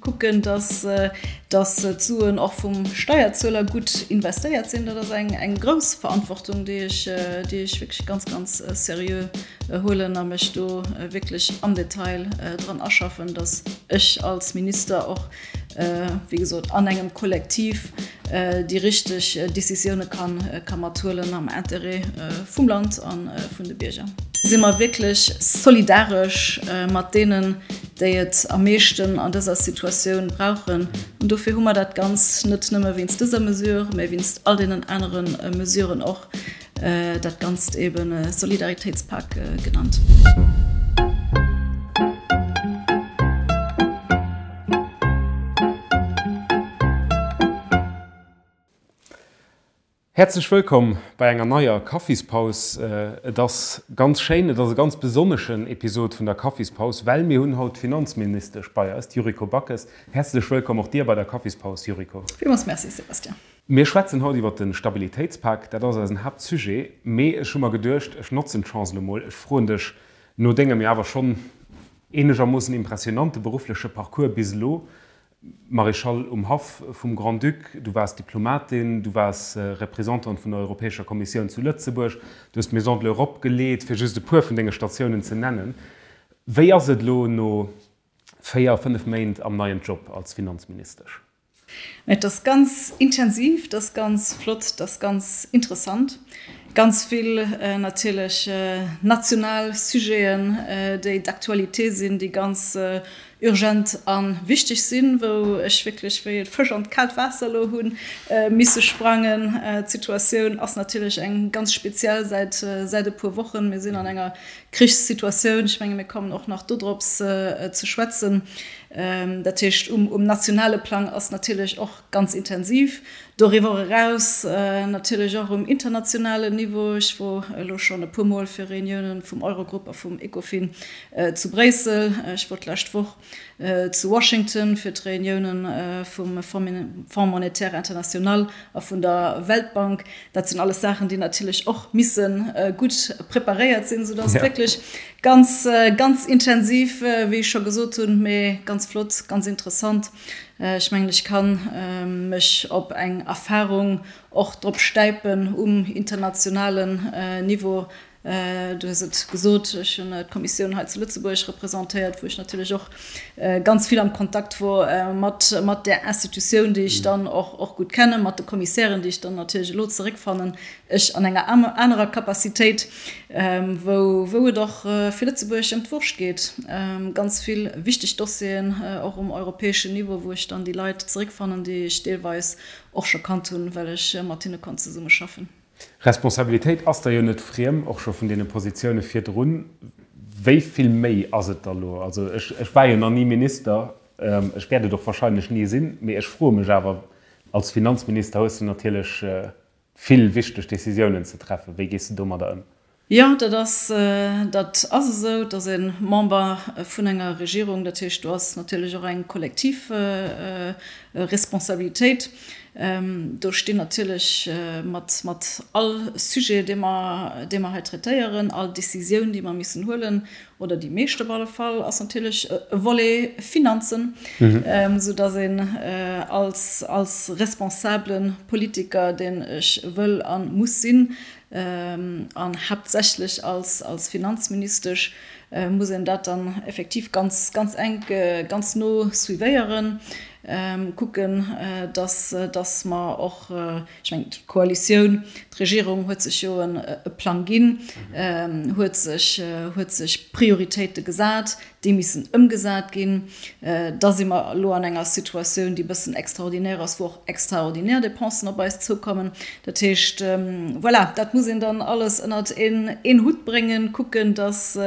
Kucken, dass d'Suen och vum Steierzueler gutt investéiert sinn. Dat ass eng grouss Verantwortung, déi ech wierklech ganz, ganz seriö huelen a mech do wierklech am Detail dran aschaffen, dass ech als Minister och, wéi gesot, an engem Kollektiv déi richteg Décisioune ka mathuelen am Intérêt vum Land a vun de Bierger. Si mer wierklech solidaresch mat deenen, déi et am meeschten an dëser Situatioun brauchen. An dofir hu mer dat Ganz net nëmme wéinst dëser Mesure, mä wéinst all deenen anere Mesuren och, dat Ganzt eben Solidaritéitspak genannt. Häerzlech wëllkomm bei enger neier Kaffispaus. Et ass ganz schéin, et ass e ganz besonneschen Episod vun der Kaffispaus, well mir hunn haut d'Finanzministesch bei eis, d'Yuriko Backes. Häerzlech wëllkomm och dir bei der Kaffispaus, Yuriko. Villmools Merci, Sébastien. Mir schwätzen haut iwwert de Stabilitéitspak, dat ass eisen Haaptsujet. Mee ech hu mer geduecht, ech notzen d'Chance elo mol, ech froen dech no dengem jo awer schonn eenegermoossen impressionante beruffleche Parcours bis elo, Maréchal um Haff vum Grand-Duc, du waars Diplomatin, du waars Représentante vun der Europäescher Kommissioun zu Lëtzebuerg, du hues d'Maison de l'Europe geleet, fir just e puer vun denge Statiounen ze nennen. Wéi ass et elo no 4, 5 Méint am neien Job als Finanzministesch? Et ass ganz intensiv, et ass ganz flott, et ass ganz interessant. Ganz vill natierlech national Sujeten, déi d'actualité sinn, déi ganz urgent a wichteg sinn, wou ech wierklech wéi e Fësch an d'kaalt Waasser elo hu misse sprangen. D'Situatioun ass natierlech eng ganz speziell säit säit e puer Wochen. Mir sinn an enger Krichssituatioun. Ech menge mir kommen och nach dodrops ze schwätzen. Dat heescht, um nationale Plang ass natierlech och ganz intensiv. Doriwwer eraus natierlech och um internationalen Niveau. Ech wor elo schonn e puer Mol fir Reuniounen vum Eurogrupp a vum Ecofin zu Bréissel. Ech wor d'lescht Woch zu Washington fir d'Reuniounen vum Fonds monétaire international a vun der Weltbank. Dat sinn alles Saachen, déi natierlech och misse gutt preparéiert sinn, soudass et wierklech ganz, ganz intensiv, wéi ech scho gesot hunn, mee ganz flott, ganz interessant. Ech mengen, ech ka mech op eng Erfahrung och drop stäipen um internationalen Niveau. Du hues et gesot, ech hunn d'Kommissioun hei zu Lëtzebuerg representéiert, wou ech natierlech och ganz vill am Kontakt wor mat där Institutioun, déi ech dann och gutt kennen, mat de Kommissären, déi ech dann natierlech elo zeréckfannen, ech an enger anerer Capacitéit, wou et och fir Lëtzebuerg ëm d'Wurscht geet. Ganz vill wichteg Dossieren, och um europäeschen Niveau, wou ech dann déi Leit zeréckfannen, déi ech deelweis och scho kannt hunn, well ech mat hinne konnt zesummeschaffen. Responsabilitéit ass der jo net friem, och scho vun deene Positioune virdrun. Wéi vill méi ass et da lo? Also ech, ech war jo nach ni Minister, ech wäert et och wahrscheinlech ni sinn, mee ech froe mech awer, als Finanzminister hues de natierlech vill wichteg Decisiounen ze treffen. Wéi gees de domadder ëm? Jo, dat ass, dat ass esou. Et ass ee Member vun enger Regierung, dat heescht, do ass natierlech och eng kollektiv Responsabilitéit. Do stinn natierlech mat, mat all Sujet, dee mer, dee mer hei traitéieren, all Décisioun, déi mer missen huelen, oder déi meescht op alle Fall, ass natierlech e Volet Finanzen, soudass een als, als responsabele Politiker, deen ech wëll a muss sinn, An haaptsächlech als, als Finanzministesch muss een dat dann effektiv ganz, ganz enk, ganz no suivéieren, kucken, dass, dass mer och, ech mengen, d'Koalitioun, d'Regierung huet sech jo e Plang ginn, huet sech, huet sech Prioritéite gesat, déi missen ëmgesat ginn. Da si mer elo an enger Situatioun, déi e bëssen extraordinaire ass, wou och extraordinaire Dépensen op eis zoukommen. Dat heescht, voilà, dat muss een dann alles ënnert een Hutt bréngen, kucken, dass,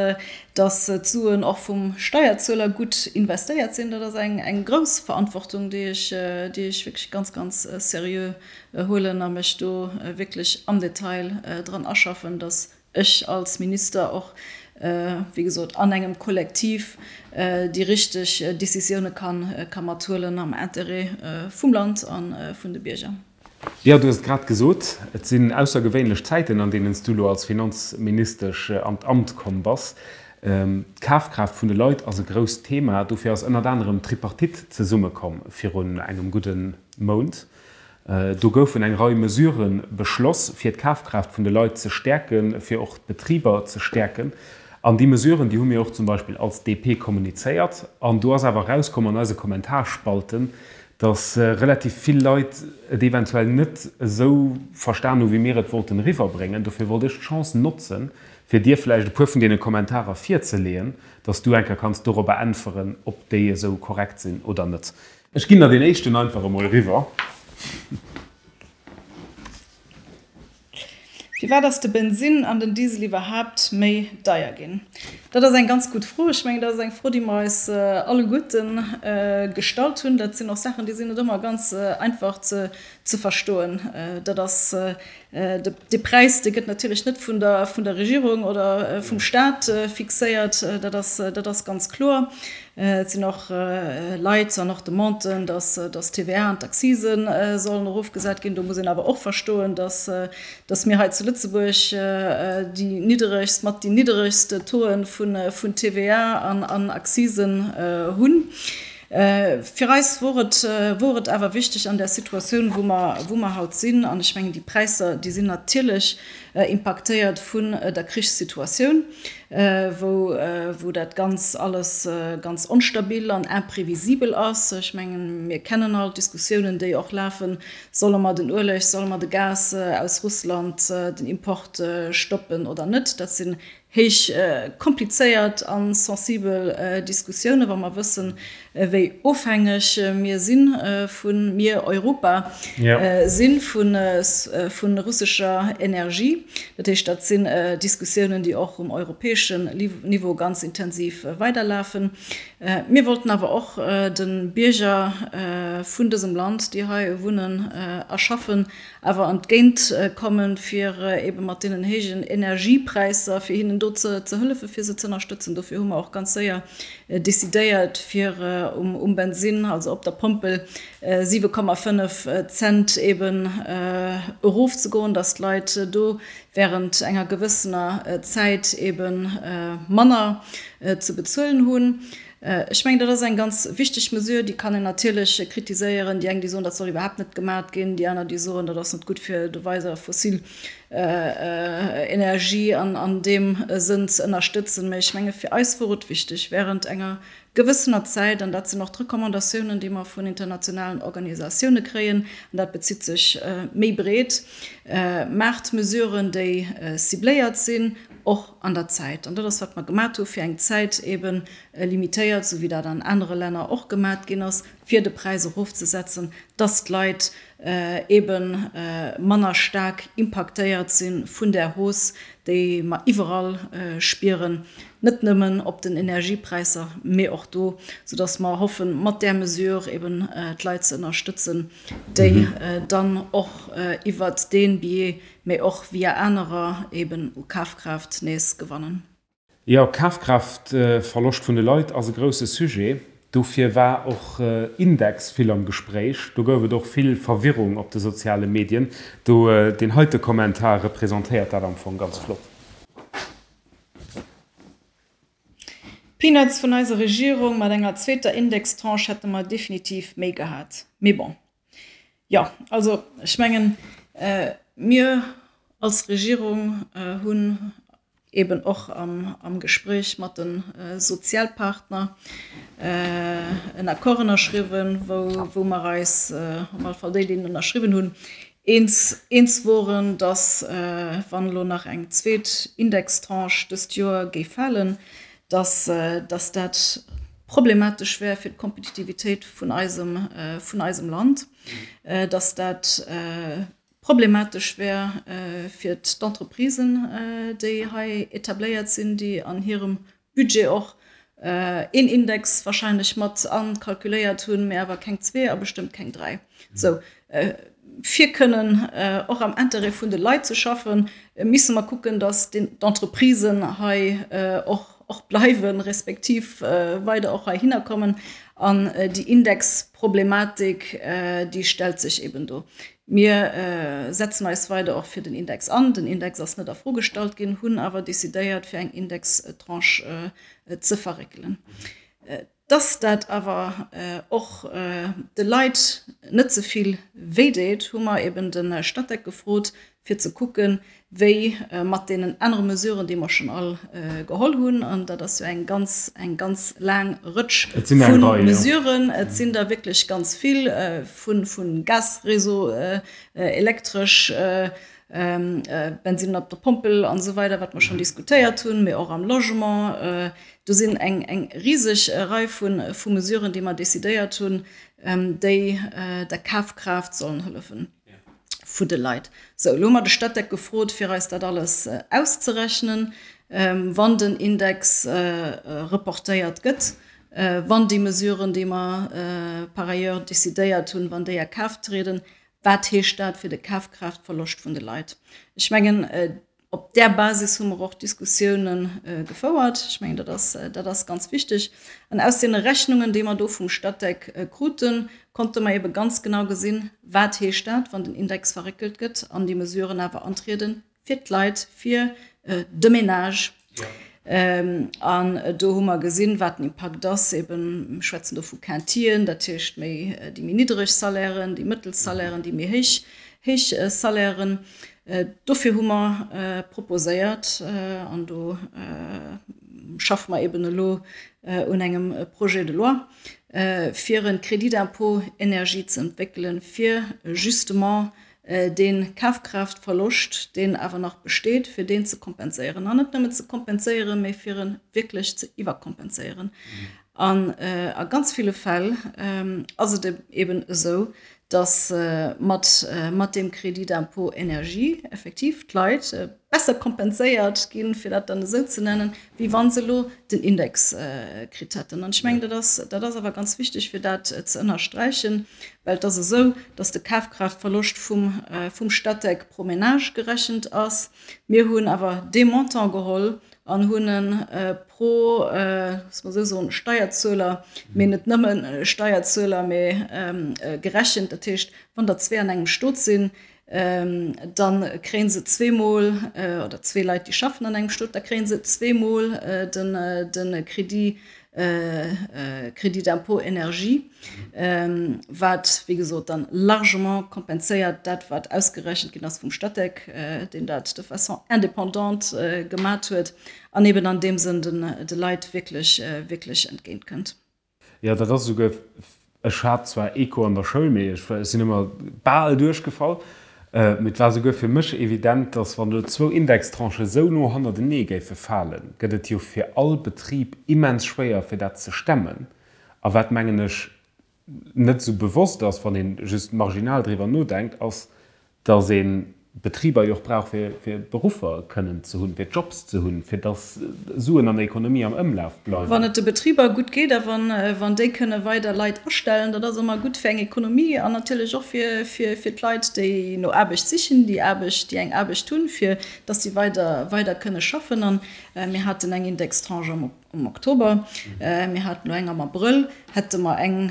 dass d'Suen och vum Steierzueler gutt investéiert sinn. Dat ass eng grouss Verantwortung, déi ech, déi ech wierklech ganz, ganz seriö huelen a mech do wierklech am Detail dran aschaffen, dass ech als Minister och, wéi gesot, an engem Kollektiv déi richteg Décisioune ka mathuelen am Intérêt vum Land a vun de Bierger. Jo, du hues et grad gesot, et sinn aussergewéinlech Zäiten, an deenen s du elo als Finanzministesch an d'Amt komm bass. D'Kafkraaft vun de Leit ass e grousst Thema. Dofir ass ënnert anerem d'Tripartite zesummekomm virun engem gudde Mount. Do goufen eng Rei Mesurë beschloss, fir d'Kafkraaft vun de Leit ze stäerken, fir och d'Betriber ze stäerken. An déi Mesuren, déi hu mir och zum Beispill als DP kommunizéiert. An do ass awer erauskomm an eise Kommentarspalten, datt relativ vill Leit et eventuell net esou verstan hu wéi mir et wollten eriwwerbréngen. Dofir wollt ech d'Chance notzen, fir dir vläicht e puer vun deene Kommentarer virzeleeën, datt s du eng Kéier kanns dorobber äntweren, ob déi esou korrekt sinn oder net. Ech ginn der deen éischten einfach emol eriwwer. Firwat ass de Bensinn an den Diesel iwwerhaapt méi deier ginn? Dat ass eng ganz gutt Fro. Ech mengen, dat ass eng Fro, déi mer eis alleguerte gestallt hunn. Dat sinn och Saachen, déi sinn net ëmmer ganz einfach ze verstoen. Dat ass Dee Präis, dee gëtt natierlech net vun der, vun der Regierung oder vum Staat fixéiert, dat ass, dat ass ganz kloer. Et sinn och Leit an och Demanden, dass, dass d'TVA an d'Accisen sollen erofgesat ginn. Do muss een awer och verstoen, dass, dass mir hei zu Lëtzebuerg déi nidderegst, mat déi nidderegst Tauxen vun, vun TVA an, an Accisen hunn. Fir eis wor et, wor et awer wichteg an där Situatioun, wou mer, wou mer haut sinn, an ech mengen, déi Präisser, déi sinn natierlech impaktéiert vun der Krichssituatioun, wou, wou dat Ganz alles ganz onstabil an imprévisibel ass. Ech mengen, mir kennen all d'Diskussiounen, déi och lafen, Solle mer den Ueleg, solle mer de Gas aus Russland, den Import stoppen oder net? Dat sinn Héich komplizéiert a sensibel Diskussiounen, wa mer wëssen, wéi ofhängeg mir si vu, mir Europa si vu russescher Energie. Dat heescht, dat sinn Diskussiounen, déi och um europäeschen Niveau ganz intensiv weiderlafen. Mir wollten awer och de Bierger vun dësem Land, déi hei wunnen a schaffen, awer entgéint kommen, fir ebe mat deenen héijen Energiepräisser, fir hinnen do ze hëllefen, fir se ze ënnerstëtzen. Dofir hu mer och ganz séier decidéiert, fir um Bensinn, also op der Pompel, 7,5 Cent eben erofzegoen, dass d'Leit do während enger gewëssener Zäit ebe manner ze bezuelen hunn. Ech mengen, dat ass eng ganz wichteg Mesure. Déi kann een natierlech kritiséieren. Déi eng, déi soen, dat soll iwwerhaapt net gemat ginn. Déi aner, déi soen, dat ass net gutt, fir do weider fossil Energie an deem Sënn ze ënnerstëtzen. Mä ech menge fir eis wor et wichteg, während enger gewëssener Zäit, an dat sinn och d'Recommandatiounen, déi mer vun internationalen Organisatioune kréien, an dat bezitt sech méi breet, maacht Mesuren, déi cibléiert sinn, och an der Zäit. An dat ass, wat mer gemat hu fir eng Zäit eeben limitéiert, esou wéi dat an anere Länner och gemat ginn ass, fir de Präis erofzesetzen, dass d'Leit eebe manner staark impaktéiert si vun där Hausse, déi mer iwwerall spieren, net nëmmen op den Energiepräisser, mee och do, soudass mer hoffen, mat där Mesure eeben d'Leit ze ënnerstëtzen, déi dann och iwwert dee Biais, mee och via anerer eeben u Kafkraaft nees gewannen. Jo, Kafkraaftverloscht vun de Leit ass e grousse Sujet. Dofir war och Index vill am Gespréich. Do gouf et och vill Verwirrung op de soziale Medien. Do, deen heite Kommentar representéiert dat am Fong ganz flott. Peanuts vun eiser Regierung, mat enger zweeter Indextranche hätte mer definitiv méi gehat. Mee bon. Jo, also ech mengen, mir als Regierung hunn eben och am Gespréich mat de Sozialpartner en Accord ënnerschriwwen, wou mer eis, op alle Fall déi, déi en ënnerschriwwen hunn, eens eens woren, datt, wann elo nach eng zweet Indextranche dëst Joer géif falen, datt datt dat problematesch wär fir d'Kompetitivitéit vun eisem vun eisem Land, datt dat problematesch wär fir d'Entreprisen, déi hei etabléiert sinn, déi an hirem Budget och een Index wahrscheinlech mat akalkuléiert hunn, mä awer keng zwee a bestëmmt keng dräi. Sou, fir kënnen och am Intérêt vun de Leit ze schaffen, misse mer kucken, datt d'Entreprisen hei och. och bleiwen, respektiv weider och heihinner kommen. An déi Indexproblematik, déi stellt sech eben do. Mir setzen eis weider och fir den Index an. Den Index ass net a Fro gestallt ginn, hunn awer decidéiert, fir eng Indextranche ze verréckelen. Dass dat awer och de Leit net ze vill wéi deet, hu mer eben de Statec gefrot, fir ze kucken, wéi mat deenen anere Mesuren, déi mer schonn all geholl hunn, an dat ass jo eng ganz, eng ganz laang Rëtsch vu Mesuren, et sinn der wierklech ganz vill, vu Gasréseau, Elektresch, Bensinn op der Pompel an esou weider, wat mer schonn diskutéiert hunn, mee och am Logement. Do sinn eng, eng riseg Rei vu, vu Mesuren, déi mer decidéiert hunn, déi der Kafkraaft sollen hëllefen vu de Leit. Sou, elo hu mer de Statec gefrot, fir eis dat alles auszerechnen, wann den Index reportéiert gëtt, wann déi Mesuren, déi mer par ailleurs decidéiert hunn, wann déi a Kraaft trieden, wat heescht dat fir de Kafkraaftverloscht vun de Leit? Ech mengen, Op där Basis hu mer och Diskussiounen gefouert. Ech mengen, dat ass, dat ass ganz wichteg. An aus deene Rechnungen, déi mer do vum Statec kruten, konnte mer ebe ganz genau gesinn, wat heescht dat, wann den Index verréckelt gëtt an déi Mesuren awer antrieden fir d'Leit, fir de Ménage. An do hu mer gesinn, wat den Impakt ass. Eben, mir schwätzen do vu Quintien, dat heescht méi déi méi niddereg Salairen, déi mëttel Salairen, déi méi héich, héich Salairen. Dofir hu mer proposéiert, an do schaffe mer eben elo un engem Projet de loi, fir e Crédit d'impôt énergie ze entwéckelen, fir justement dee Kafkraaftverloscht, deen awer nach besteet, fir deen ze kompenséieren. An net nëmmen ze kompenséieren, mee fir e wierklech ze iwwerkompenséieren. An a ganz ville Fäll ass et eben esou, dass mat mat deem Crédit d'impôt énergie effektiv d'Leit besser kompenséiert ginn, fir dat dann esou ze nennen, wéi wa se elo den Index kritt hätten. An ech mengen, dat ass, dat ass awer ganz wichteg, fir dat ze ënnersträichen, well et ass esou, dass de Kafkraaftverloscht vum, vum Statec pro Ménage gerechent ass. Mir hunn awer dee Montant geholl an hunn e pro, loosse mer esou soen, Steierzueler, mee net nëmme Steierzueler, mee gerechent. Dat heescht, wann der zwee an engem Stot sinn, da kréie se zweemol, oder zwee Leit, déi schaffen an engem Stot, da kréie se zweemol de Crédit, Crédit d'impôt énergie, wat, wéi gesot, dann largement kompenséiert dat, wat ausgerechent ginn ass vum Statec, deen dat de façon indépendante gemat huet an eben an deem Sënn de Leit wierklech, wierklech entgéintkënnt. Jo, dat ass esouguer, ech hat zwar Eco an der Schoul, mee ech sinn ëmmer bal duerchgefall, mee et war esouguer fir mech evident, datt wann elo zwou Indextranchen esou no hannertenee géife falen, gëtt et jo fir all Betrib immens schwéier fir dat ze stemmen. A wat, mengen ech, net esou bewosst ass, wann ee just marginal driwwer nodenkt, ass, Dass ee Betriber jo och brauch, fir Beruffer kënnen ze hunn, fir Jobs ze hunn, fir dass Suen an der Ekonomie am Ëmlaf bleiwen. Wann et de Betriber gutt geet a wann déi kënne weider Leit astellen, dat ass ëmmer gutt fir eng Ekonomie an natierlech och fir d'Leit, déi no Aarbecht sichen, déi Aarbecht, déi eng Aarbecht hunn, fir dass si weider, weider kënne schaffen. A mir haten eng Indextranche am. Am Oktober, mir haten elo eng am Abrëll, hätte mer eng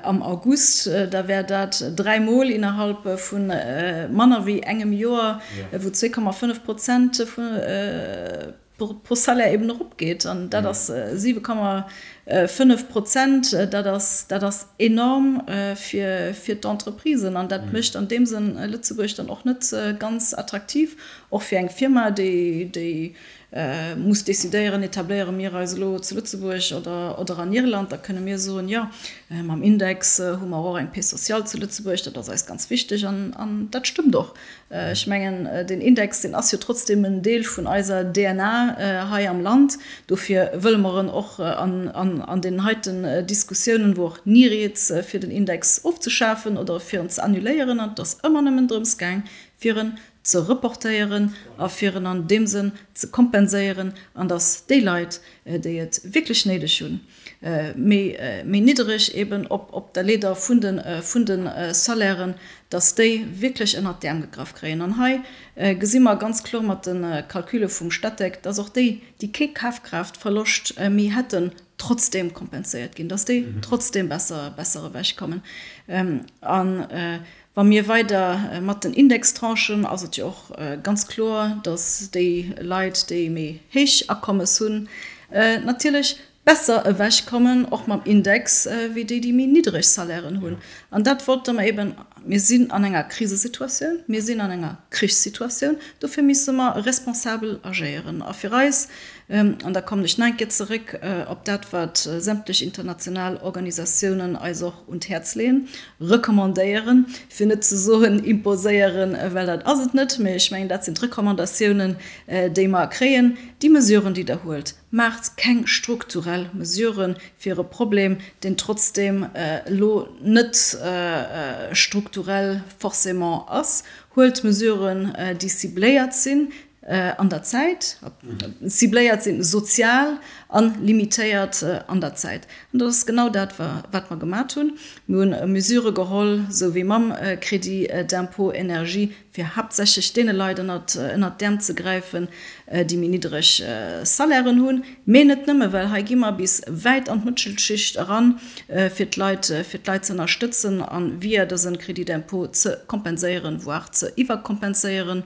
am August, da wär dat dräimol innerhalb vu manner wéi engem Joer, wou 2,5 Prozent pro Salaire eben eropgeet. An dat ass 7,5 Prozent, dat ass, dat ass enorm fir d'Entreprisen. An dat mécht an deem Sënn Lëtzebuerg dann och net ganz attraktiv, och fir eng Firma, déi muss decidéieren, etabléiere mir eis elo zu Lëtzebuerg oder an Irland, da kënne mir soen, jo, mam Index hu mer och eng Paix sociale zu Lëtzebuerg, dat ass eis ganz wichteg. An dat stëmmt och. Ech mengen, deen Index, deen ass jo trotzdeem en Deel vun eiser DNA hei am Land. Dofir wëlle mer en och an deenen heiten Diskussiounen, wor och ni rieds, fir den Index ofzeschafen oder fir en ze annuléieren. An et ass ëmmer nëmmen drëms gaang, fir en. ze reportéieren a fir en an deem Sënn ze kompenséieren an dass déi Leit, déi et wierklech néideg hunn, méi méi niddereg eben op op der Leeder vun de vun de Salairen, dass déi wierklech ënnert d'Äerm gegraff kréien. An hei gesi mer ganz kloer mat de Calcule vum Statec, dass och déi, déi kee Kafkraaftverloscht méi hätten, trotzdem kompenséiert ginn, dass déi trotzdem besser besser ewechkommen. An wa mir weider mat den Indextranchen, ass et jo och ganz kloer, dass déi Leit, déi méi héich Akommes hunn, natierlech besser ewechkommen, och mam Index, wéi déi, déi méi niddereg Salairen hunn. An dat wollte mer eben, mir sinn an enger Krisesituatioun, mir sinn an enger Krichssituatioun, dofir misse mer responsabel agéieren. A fir eis, an da kommen ech nach eng Kéier zeréck op dat, wat sämtlech international Organisatiounen eis och un d'Häerz leeën, recommandéieren, fir net ze soen imposéieren, well dat ass et net, mä ech mengen, dat sinn d'Recommandatiounen, déi mer kréien, déi Mesuren, déi Der huelt, Maacht keng strukturell Mesuren fir e Problem, deen trotzdeem elo net strukturell forcément ass. Huelt Mesuren, déi cibléiert sinn an der Zäit, cibléiert sinn sozial a limitéiert an der Zäit. An dat ass genau dat, wat mer gemat hunn. Mir hunn Mesurë geholl, esou wéi mam Crédit d'impôt énergie, fir haaptsächlech deene Leit ënnert d'Äerm ze gräifen, déi méi niddereg Salairen hunn, mee net nëmme, well hei gi mer bis wäit an d'Mëttelschicht eran, fir d'Leit, fir d'Leit ze ënnerstëtzen a via dëse Crédit d'impôt ze kompenséieren, voire ze iwwerkompenséieren.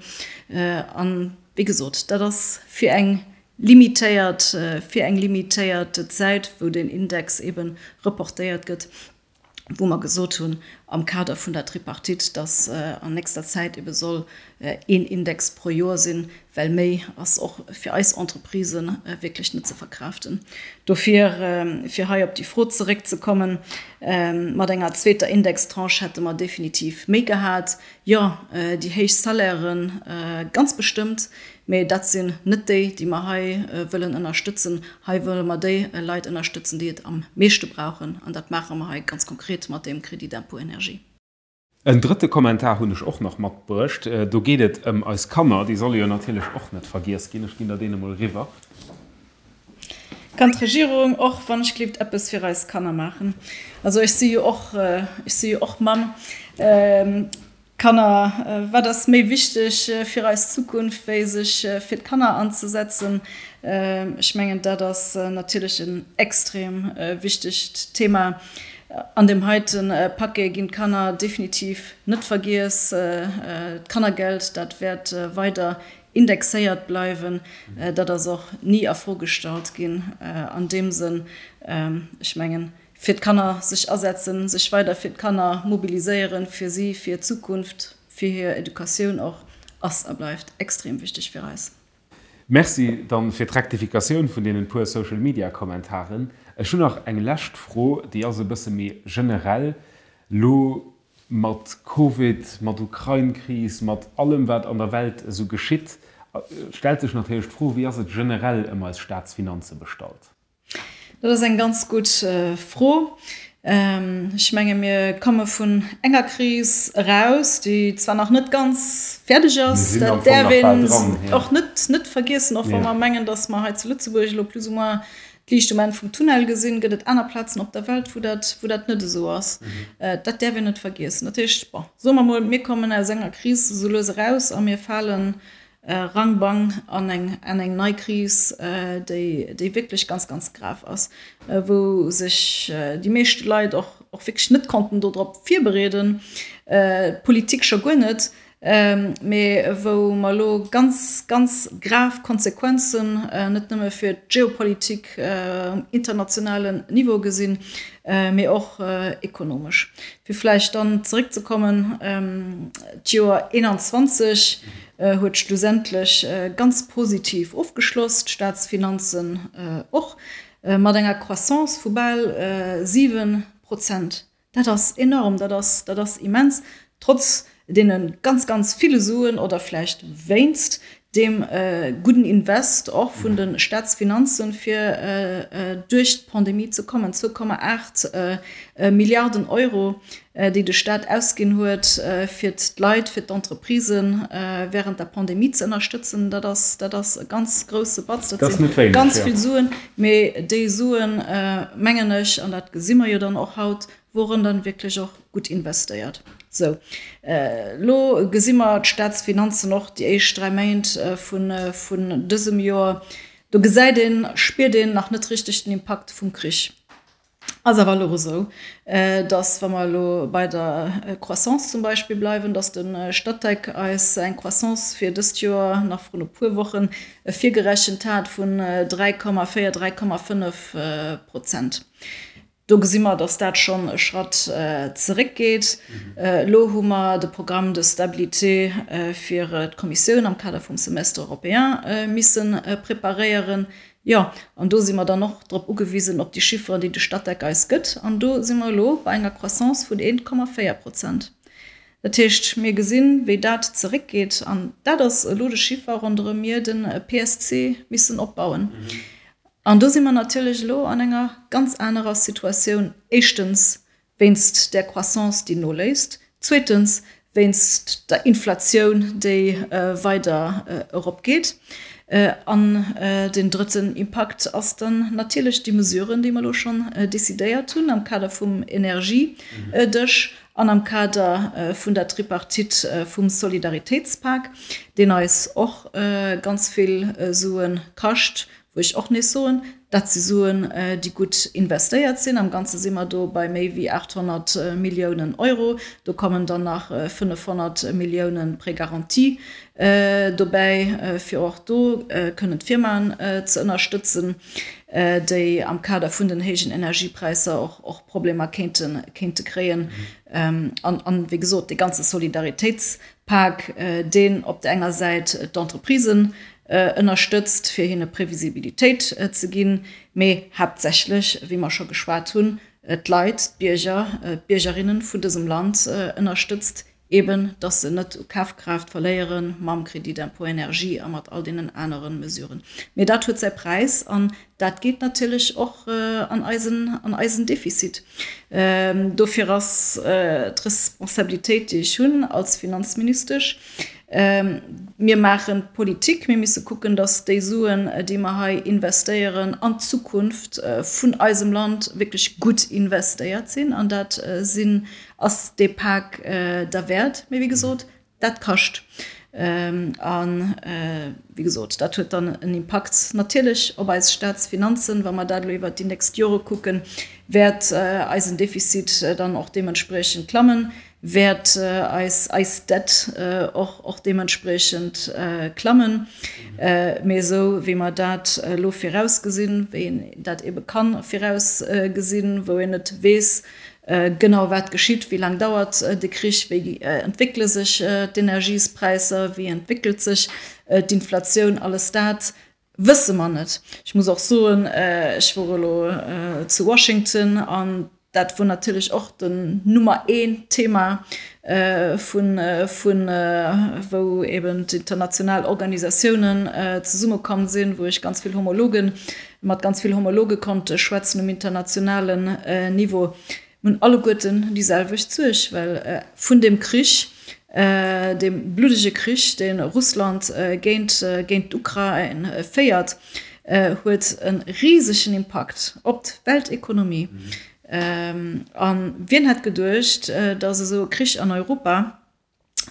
An, wéi gesot, dat ass fir eng limitéiert, fir eng limitéiert Zäit, wou deen Index eebe reportéiert gëtt. wou mer gesot hunn am Kader vun der Tripartite, dass an nächster Zäit ebe soll een Index pro Joer sinn, well méi ass och fir eis Entreprisë wierklech net ze verkraaften. Dofir, fir hei op déi Fro zeréckzekommen, mat enger zweeter Indextranche hätte mer definitiv méi gehat. Jo, déi héich Salairen ganz bestëmmt, mee dat sinn net déi, déi mer hei wëllen ënnerstëtzen. Hei wëlle mer déi Leit ënnerstëtzen, déi et am meeschte brauchen, an dat maache mer hei ganz konkret mat deem Crédit d'impôt énergie. En drëtte Kommentar hunn ech och nach matbruecht. Do geet et ëm eis Kanner. Déi solle jo natierlech och net vergiess ginn. Ech ginn der deen emol eriwwer. Kann d'Regierung och wann ech gleeft eppes fir eis Kanner maachen? Also ech si jo och, ech si jo och Mamm. Kanner, wat ass méi wichteg fir eis Zukunft wéi sech fir d'Kanner anzesetzen? Ech mengen dat ass natierlech en extrem wichtegt Thema. An deem heite Paquet ginn d'Kanner definitiv net vergiess. D'Kannergeld, dat wäert weider indexéiert bleiwen. Dat ass och ni a Fro gestallt ginn an deem Sënn. Ech mengen, fir d'Kanner sech asetzen, sech weider fir d'Kanner mobiliséieren, fir si, fir hir Zukunft, fir hir Educatioun och, ass a bleift extrem wichteg fir eis. Merci dann fir d'Rektifikatioun vun deenen puer Social Media Kommentaren. Ech hunn nach eng lescht Fro, déi ass e bësse méi generell. Lo Mat Covid, mat Ukrain-Kris, mat allem wat an der Welt esou geschitt, stellt sech natierlech d'Fro, wéi ass et generell ëm eis Staatsfinanze bestallt? Dat ass eng ganz gutt Fro. Ech menge mir komme vun enger Kris eraus, déi zwar nach net ganz fäerdeg ass, dat däerf een och net vergiessen, och wa mer mengen, datt mer hei zu Lëtzebuerg elo plus ou moins D'Liicht um Enn vum Tunnel gesinn, gëtt et aner Plazen op der Welt, wou dat, wou dat net esou ass. Dat däerf een net vergiessen. Dat heescht, bon, soe mer mol, mir kommen aus enger Kris esou lues eraus a mir fale rang bang an eng, an eng nei Kris, déi, déi wierklech ganz, ganz grav ass, wou sech déi meeschte Leit och, och wierklech net konnten dodrop virbereeden, d'Politik scho guer net. mee wou mer elo ganz, ganz grav Konsequenzen net nëmme fir d'Geopolitik um internationalen Niveau gesinn, mee och ekonomesch. Fir vläicht dann zeréckzekommen, d'Joer 21 huet schlussendlech ganz positiv ofgeschloss, d'Staatsfinanzen och, mat enger Croissance vu bal 7 Prozent. Dat ass enorm, dat ass, dat ass immens, trotz deene ganz, ganz ville Suen oder vläicht wéinst Deem gudden Invest och vun de Staatsfinanzen, fir duerch d'Pandemie ze kommen, 2,8 Milliarden Euro, déi de Staat ausginn huet, fir d'Leit, fir d'Entreprisen während der Pandemie ze ënnerstëtzen, dat ass, dat ass e ganz grouse Batz. Dat si ganz vill Suen. Mee déi Suen, mengen ech, an dat gesi mer jo dann och haut, woren dann wierklech och gutt investéiert. Sou, elo gesi mer d'Staatsfinanzen och déi éischt 3 Méint vun dësem Joer. Do gesäit een, spiert een nach net richteg den Impakt vum Krich. Ass awer elo esou, datt, wa mer elo bei der Croissance zum Beispill bleiwen, datt de Statec eis eng Croissance fir dëst Joer nach vrun e puer Woche virgerechent hat vun 3,4, 3,5 Prozent. Do gesi mer, dass dat schonn e Schratt zeréckgeet. Elo hu mer de Programme de stabilité fir d'Kommissioun am Kader vum Semestre européen misse preparéieren. Jo, an do si mer dann och drop ugewisen, op déi Chifferen, déi de Statec eis gëtt. An do si mer elo bei enger Croissance vun 1,4 Prozent. Dat heescht, mir gesinn, wéi dat zeréckgeet. An dat ass elo de Chiffer, ronderëm mir de PSC missen opbauen. An do si mer natierlech elo an enger ganz anerer Situatioun, éischtens wéinst där Croissance, déi noléisst, zweetens wéinst der Inflatioun, déi weider eropgeet. An deen drëtten Impakt ass dann natierlech déi Mesuren, déi mer elo schonn decidéiert hunn am Kader vum Energiedësch an am Kader vun der Tripartite vum Solidaritéitspak, deen eis och ganz vill Sue kascht, Wou ech och nees soen, dat si Suen, déi gutt investéiert sinn. Am Ganze si mer do bei méi wéi 800 Milliounen Euro. Do kommen dann nach 500 Milliounen Prêt garanti dobäi, fir och do kënnen d'Firmaen ze ënnerstëtzen, déi am Kader vun den héijen Energiepräisser och Problemer kéinte kréien. An, wéi gesot, dee ganze Solidaritéitspak, deen op der enger Säit d'Entreprisen ënnerstëtzt, fir hinne Previsibilitéit ze ginn, mee haaptsächlech, wéi mer scho geschwat hunn, d'Leit, d'Bierger, d'Biergerinnen vun dësem Land ënnerstëtzt, eben dass se net u Kafkraaft verléiere mam Crédit d'impôt énergie a mat all deenen anere Mesuren. Mee dat huet säi Präis an dat geet natierlech och an eisen, an eisen Defizit. Dofir ass d'Responsabilitéit, déi ech hunn als Finanzministesch, Mir maachen Politik, mir misse kucken, datt déi Suen, déi mer hei investéieren an d'Zukunft vun eisem Land, wierklech gutt investéiert sinn. An dat sinn, ass dee Pak derwäert. Mee wéi gesot, dat kascht. A wéi gesot, dat huet dann en Impakt natierlech op eis Staatsfinanzen. Wa mer dat elo iwwert déi nächst Jore kucken, wäert eisen Defizit dann och deementspriechend klammen. wäert eis eis Dette och och deementspriechend klammen. Mee esou wéi mer dat elo virausgesinn, wéi een dat ebe ka virausgesinn, wou een net weess genau wat geschitt, wéi laang dauert de Krich, wéi entwéckele sech d'Energiespräisser, wéi entwéckelt sech d'Inflatioun, alles dat Wësse mer net. Ech muss och soen, ech wor elo zu Washington an dat wor natierlech och den Nummer een Thema vun, vun wou eben d'international Organisatiounen zesummekomm sinn, wou ech ganz vill Homologen, mat ganz vill Homologe konnt schwätzen um internationalen Niveau. Mir hunn alleguerten déi selwecht Suerg, well vun deem Krich, deem bluddege Krich, dee Russland géint géint d'Ukrain féiert, huet e risegen Impakt op d'Weltekonomie. A wien hätt geduecht, datt esou e Krich an Europa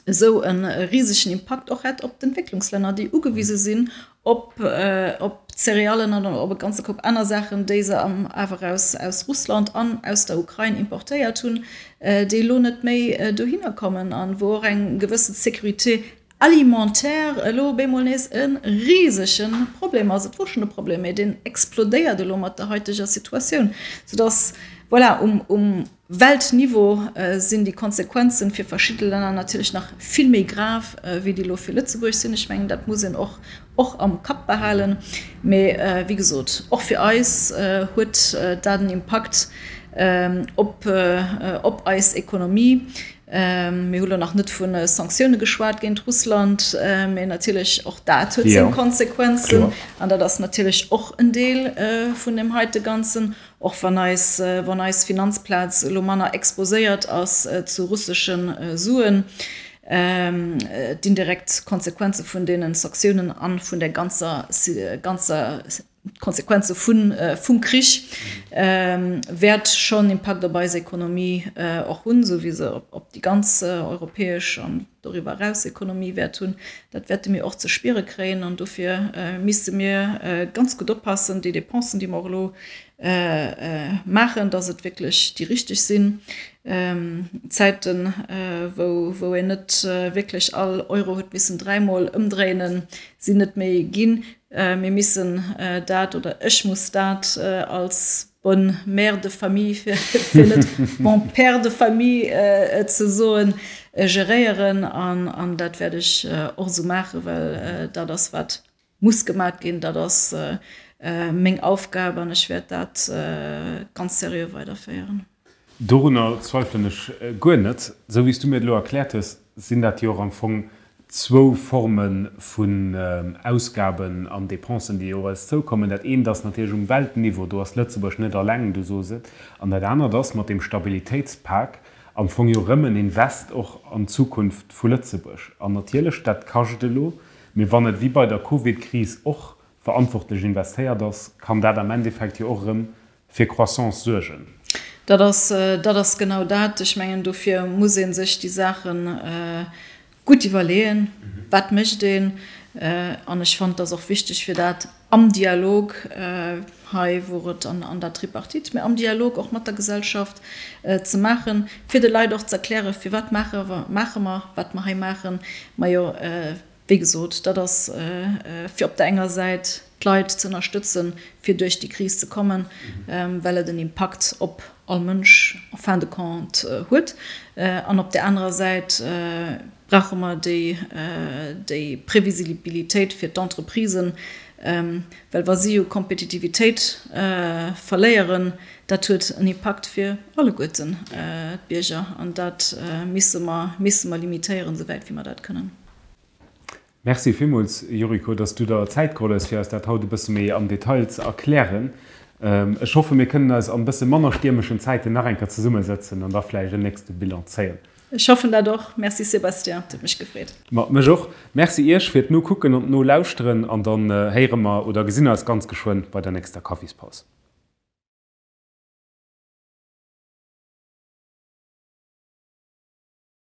esou e risegen Impakt och hätt op d'Entwécklungslänner, déi ugewise sinn op op Céréallen an op e ganze Koup aner Saachen, déi se awer aus aus Russland an aus der Ukrain importéiert hunn, déi elo net méi dohinner kommen an wou och eng gewësse Sécurité alimentaire elo op eemol nees e risege Problem ass. Et wor schonn e Problem, mee deen explodéiert elo mat der haiteger Situatioun, soudass, voilà, um um Weltniveau sinn déi Konsequenzen fir verschidde Länner natierlech nach vill méi grav, wéi déi elo fir Lëtzebuerg sinn. Ech mengen, dat muss een och och am Kapp behalen. Mee wéi gesot, och fir eis huet dat en Impakt. op op eis Ekonomie. Mir hu lo nach net vu Sanktioune geschwat géint Russland, mee natierlech och dat huet seng Konsequenzen. An dat ass natierlech och en Deel vun deem heite Ganzen, och wann eis, wann eis Finanzplaz elo manner exposéiert ass zu russesche Suen. D'indirekt Konsequenze vun deene Sanktiounen a vun der ganzer, ganzer D'Konsequenze vum Krich wäert schonn Impakt op eis Ekonomie och hunn, esou wéi se op déi ganz europäesch an doriwwer eraus Ekonomie wäert hunn. Dat wäerte mir och ze spiere kréien an dofir misste mir ganz gutt oppassen, déi Dépensen, déi mer och elo maachen, datt et wierklech déi richteg sinn. Zäiten, wou een net wierklech all Euro huet missen dräimol ëmdréinen, sinn net méi ginn. Mir missen dat, oder ech muss dat als bonne mère de famille, fir net bon père de famille ze soen, geréieren. An dat wäert ech och esou maachen, well dat ass, wat muss gemaat ginn. Dat ass meng Aufgab an ech wäert dat ganz seriö weiderféieren. Dorunner zweifelen ech guer net. Esou wéi s du mir et elo erkläert hues, sinn dat jo och am Fong zwou Forme vun Ausgaben an Dépensen, déi op eis zoukommen. Dat eent ass natierlech um Weltniveau, do ass Lëtzebuerg net alleng, du sos et. An dat anert ass mat deem Stabilitéitspak am Fong jo erëm en Invest och an d'Zukunft vu Lëtzebuerg. An natierlech, dat kascht elo, mee wann et wéi bei der Covidkris och verantwortlech investéiert ass, kann dat am Endeffekt jo och erëm fir Croissance suergen. Dat ass, dat ass genau dat. Ech mengen, dofir muss ee sech déi Saache gutt iwwerleeën, Wat mécht een? An ech fannen, et ass och wichteg, fir dat am Dialog, hei wor et an der Tripartite, mä am Dialog och mat der Gesellschaft ze maachen, fir de Leit och ze erklären, firwat maache mer, wat mer hei maachen. Majo, Wéi gesot, dat ass fir op der enger Säit d'Leit ze ënnerstëtzen, fir duerch déi Kris ze kommen, well et en Impakt op all Mënsch en fin de compte huet. An op där anerer Säit brauche mer déi Previsibilitéit fir d'Entreprisen, well wa si jo Kompetitivitéit verléieren, dat huet en Impakt fir alleguerten d'Bierger. An dat misse mer limitéieren, esouwäit wéi mer dat kënnen. Merci villmools, Yuriko, dass du der Zäit geholl hues, fir eis dat haut e bësse méi am Detail ze erklären. Ech hoffen, mir kënnen eis an e bësse manner stiermeschen Zäiten nach eng Kéier zesummesëtzen an da vläicht en nächste Bilan zéien. Ech hoffen dat och. Merci Sébastien, et huet mech gefreet. Ma mech och. Merci Iech fir d'Nokucken an d'Nolauschteren an dann héiere mer oder gesinn eis ganz geschwënn bei der nächster Kaffispaus.